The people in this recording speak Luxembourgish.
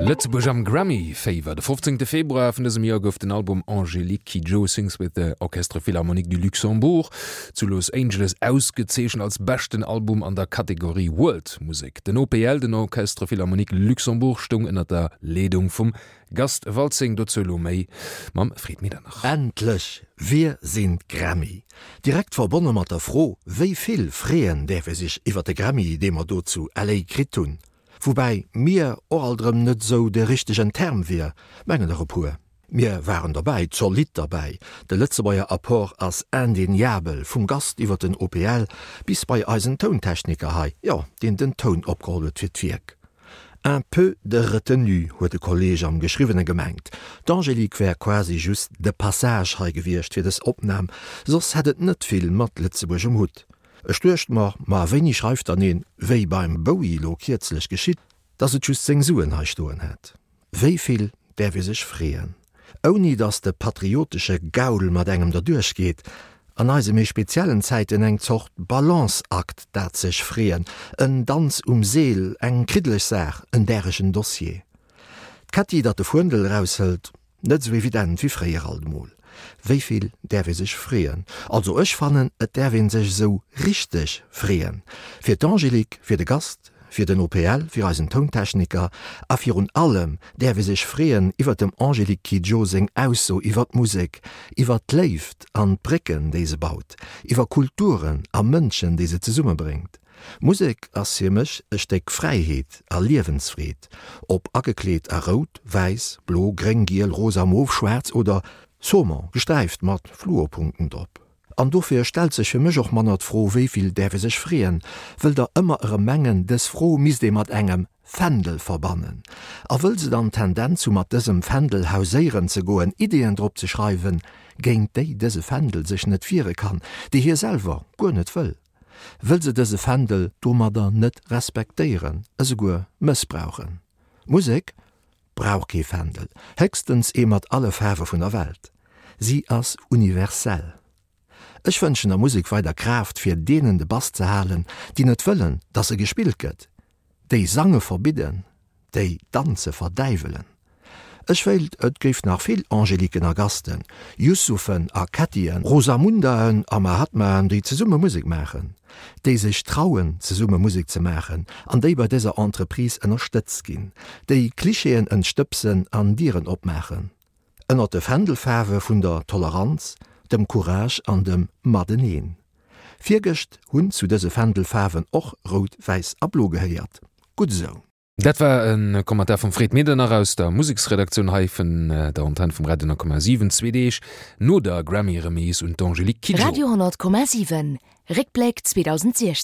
Lëtzebuerg am Grammy Féiwer. De 15 Februar vun dësem Joer gouf den Album Angélique Kidjo Sings with the Orchestre Philharmonique du Luxembourg zu Los Angeles ausgezeechent als beschten Album an der Kategorie World Musek. Den OPL, den Orchestre Philharmonique Luxembourg, stoung ënner der Leedung vum Gast Waltzing. Dozou elo méi mam Fred Medernach. Endlech! Wir sind Grammy! Direkt verbonne mat der Fro, wéi vill freeën däerf ee sech iwwer de Grammy, dee mer do zu LA kritt hunn? Woubäi mir och alt erëm net esou de richtegen Term wier, mengen der e puer. Mir waren derbäi, zolidd derbäi. De Lëtzebuerger Apport ass indéniabel, vum Gast iwwer den OPL bis bei eisen Tountechniker hei, jo, deen den Toun opgeholl huet fir d'Wierk. Un peu de retenue, huet e Kolleeg am Geschriwwene gemengt. D'Angélique wär quasi just de Passage hei gewiescht fir dës Opnam, soss hätt et net vill mat Lëtzebuerg um Hutt. Ech duecht mer, ma wéini schreift dann een, wéi beim Bowie lo kierzlech geschitt, dass et just seng Suen hei stoen hätt? Wéi vill däerf ee sech freeën, ouni dass de patriotesche Gaul mat engem derduerch geet? An eise méi speziellen Zäiten eng Zort Balanceakt, dat sech freeën, en Danz um Seel, eng kriddeleg Saach, en däregen Dossier. D'Kätti, dat de Fuendel eraushëlt, Net esou evident wéi fréier alt emol. Wéi vill däerf ee sech freeën? Also ech fannen, et däerf ee sech esou richteg freeën. Fir d'Angélique, fir de Gast, fir den OPL, fir eisen Tountechniker a virun allem däerf ee sech freeën iwwer dem Angélique Kidjo seng Ausso iwwer d'Musek, iwwer d'Léift an d'Brécken, déi se baut, iwwer Kulturen a Mënschen, déi se zesummebréngt. Musek ass fir mech e Stéck Fräiheet a Liewensfreed, ob agekleet a rout, wäiss, blo, gréng, giel, rosa, mof, schwaarz oder Saumon, gesträift mat Fluorpunkten drop. An dofir stellt sech fir mech och manner d'Fro, wéi vill däerf ee sech freeën, wëll der ëmmer erëm mengen, dës Fro misst ee mat engem Fändel verbannen. A wëll se dann d'Tendenz hu mat dësem Fändel hauséieren ze goen, Ideeën drop ze schreiwen, géint déi dëse Fändel sech net wiere kann, déi hie selwer guer net wëll. Wëll se dëse Fändel domadder net respektéieren, esouguer mëssbrauchen. Musek brauch kee Fändel, héchstens ee mat alle Faarwe vun der Welt. Si ass universell. Ech wënschen der Musek weider Kraaft fir deenen de Bass ze halen, déi net wëllen, dass se gespillt gëtt, déi Sange verbidden, déi Danze verdäiwelen. Ech wéilt, et géif nach vill Angéliquen a Gasten, Youssouphen a Kättien, Rosamundaen a Mahatmaen, déi zesumme Musek maachen, déi sech trauen, zesumme Musek ze maachen an déi bei dëser Entreprise ënnerstëtzt ginn, déi Klischeeën entstëbsen an Dieren opmaachen, ënnert de Fändelfaarwe vun der Toleranz, dem Courage an dem Mateneen. Virgëscht hunn zu dëse Fändelfaarwen och Rout, Wäiss a Blo gehéiert. Gutt esou! Dat war e Commentaire vum Fred Medernach aus der Museksredaktioun hei vun der Antenn vum Radio 10,7, zwee Deeg no der Grammy-Remise un d'Angélique Kidjo. Radio 10,7, Réckbléck 2016.